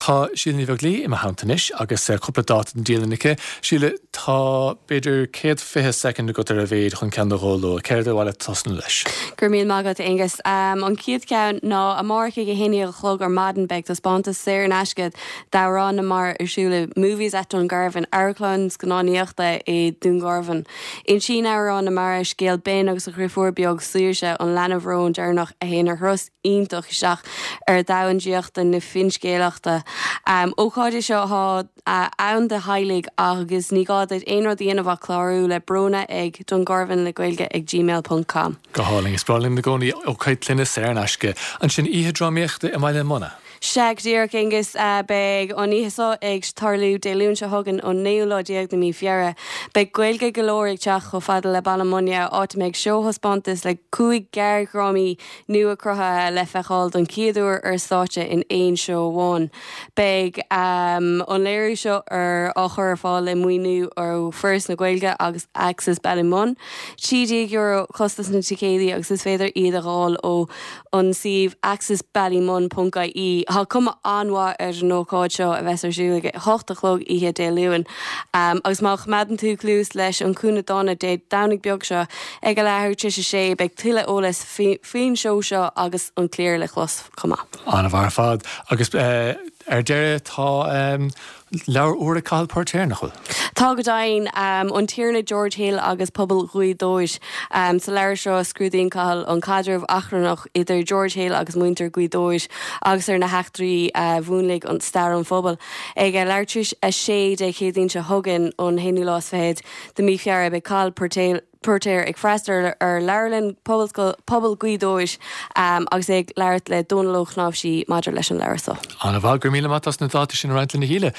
Tá Síle Ní Bheaglaoí i mo theannta anois agus cúpla dáta don dialann aici. Síle, tá b'fhéidir 120 soicind agat ar a mhéad chun ceann nó dhó a lua. Céard ar mhaith leat tosnú leis? Go raibh míle maith agat, Aonghus. An chéad cheann ná amárach ag 11 a chlog ar maidin beidh taispeántas saor in aisce d'Amhrán na Mara ar siúl i Movies at Dungarvan, amharclann scannánaíochta i Dún Garbhán. Insíonn Amhrán na Mara scéal Ben agus a dheirfiúr beag Saoirse, an leanbh róin deireanach a théann ar thuras iontach isteach ar dhomhan draíochta na finscéalaíochta. Ócáid é seo atá ann do theaghlaigh agus ní gá duit aon rud a dhéanamh ach clárú le Bróna ag Dungarvan le Gaeilge ag gmail ponc com. Go hálainn. Is breá linn i gcónaí ócáid clainne saor in aisce. Ansin oíche drámaíochta i mBaile Munna. Sea, go díreach, Aonghus. Beidh an oíche seo ag tarlú Dé Luain seo chugainn, an naoú lá déag de mhí Feabhra. Beidh Gaeilge go leor ag teacht chomh fada le Baile Munna, áit a mbeidh seó-thaispeántas le 5 gearrdhrámaí nua cruthaithe le feiceáil don chéad uair ar stáitse in aon seó amháin. Beidh an léiriú seo ar á chur ar fáil le maoiniú ó Foras na Gaeilge agus Access Ballymun. €13 costas na ticéidí agus is féidir iad a dh'fháil ó an suíomh accessballymun ponc ie. Tá cuma an-mhaith ar an ócáid seo a bheas ar siúl ag a hocht a chlog oíche Dé Luain. Agus má choimeádann tú cluas leis an Cúinne Dána Dé Domhnaigh beag seo ag a leathuair tar éis a sé beidh tuilleadh eolais faoin seó seo agus an cliar le clos chomh maith. An-mhaith ar fad. Agus ar deireadh tá Leabhar úr ag Cathal Póirtéir, nach bhfuil? Tá go deimhin. An Tiarna George Hill agus Pobal Ghaoth Dobhair. Sa leabhar seo scrúdaíonn Cathal an caidreamh achrannach idir George Hill agus muintir Ghaoth Dobhair agus ar na heachtraí a mhúnlaigh an stair an phobail. Ag a leathuair tar éis a sé Dé Céadaoin seo chugainn, an haonú lá is fichead de mhí Feabhra, beidh Cathal Póirtéir, Póirtéir ag freastal ar Leabharlann Pobail Ghaoth Dobhair agus é ag labhairt le Dónal Ó Cnáimhsí maidir leis an leabhar seo. An-mhaith, go raibh míle maith as na dátaí sin a roinnt linn a Shíle.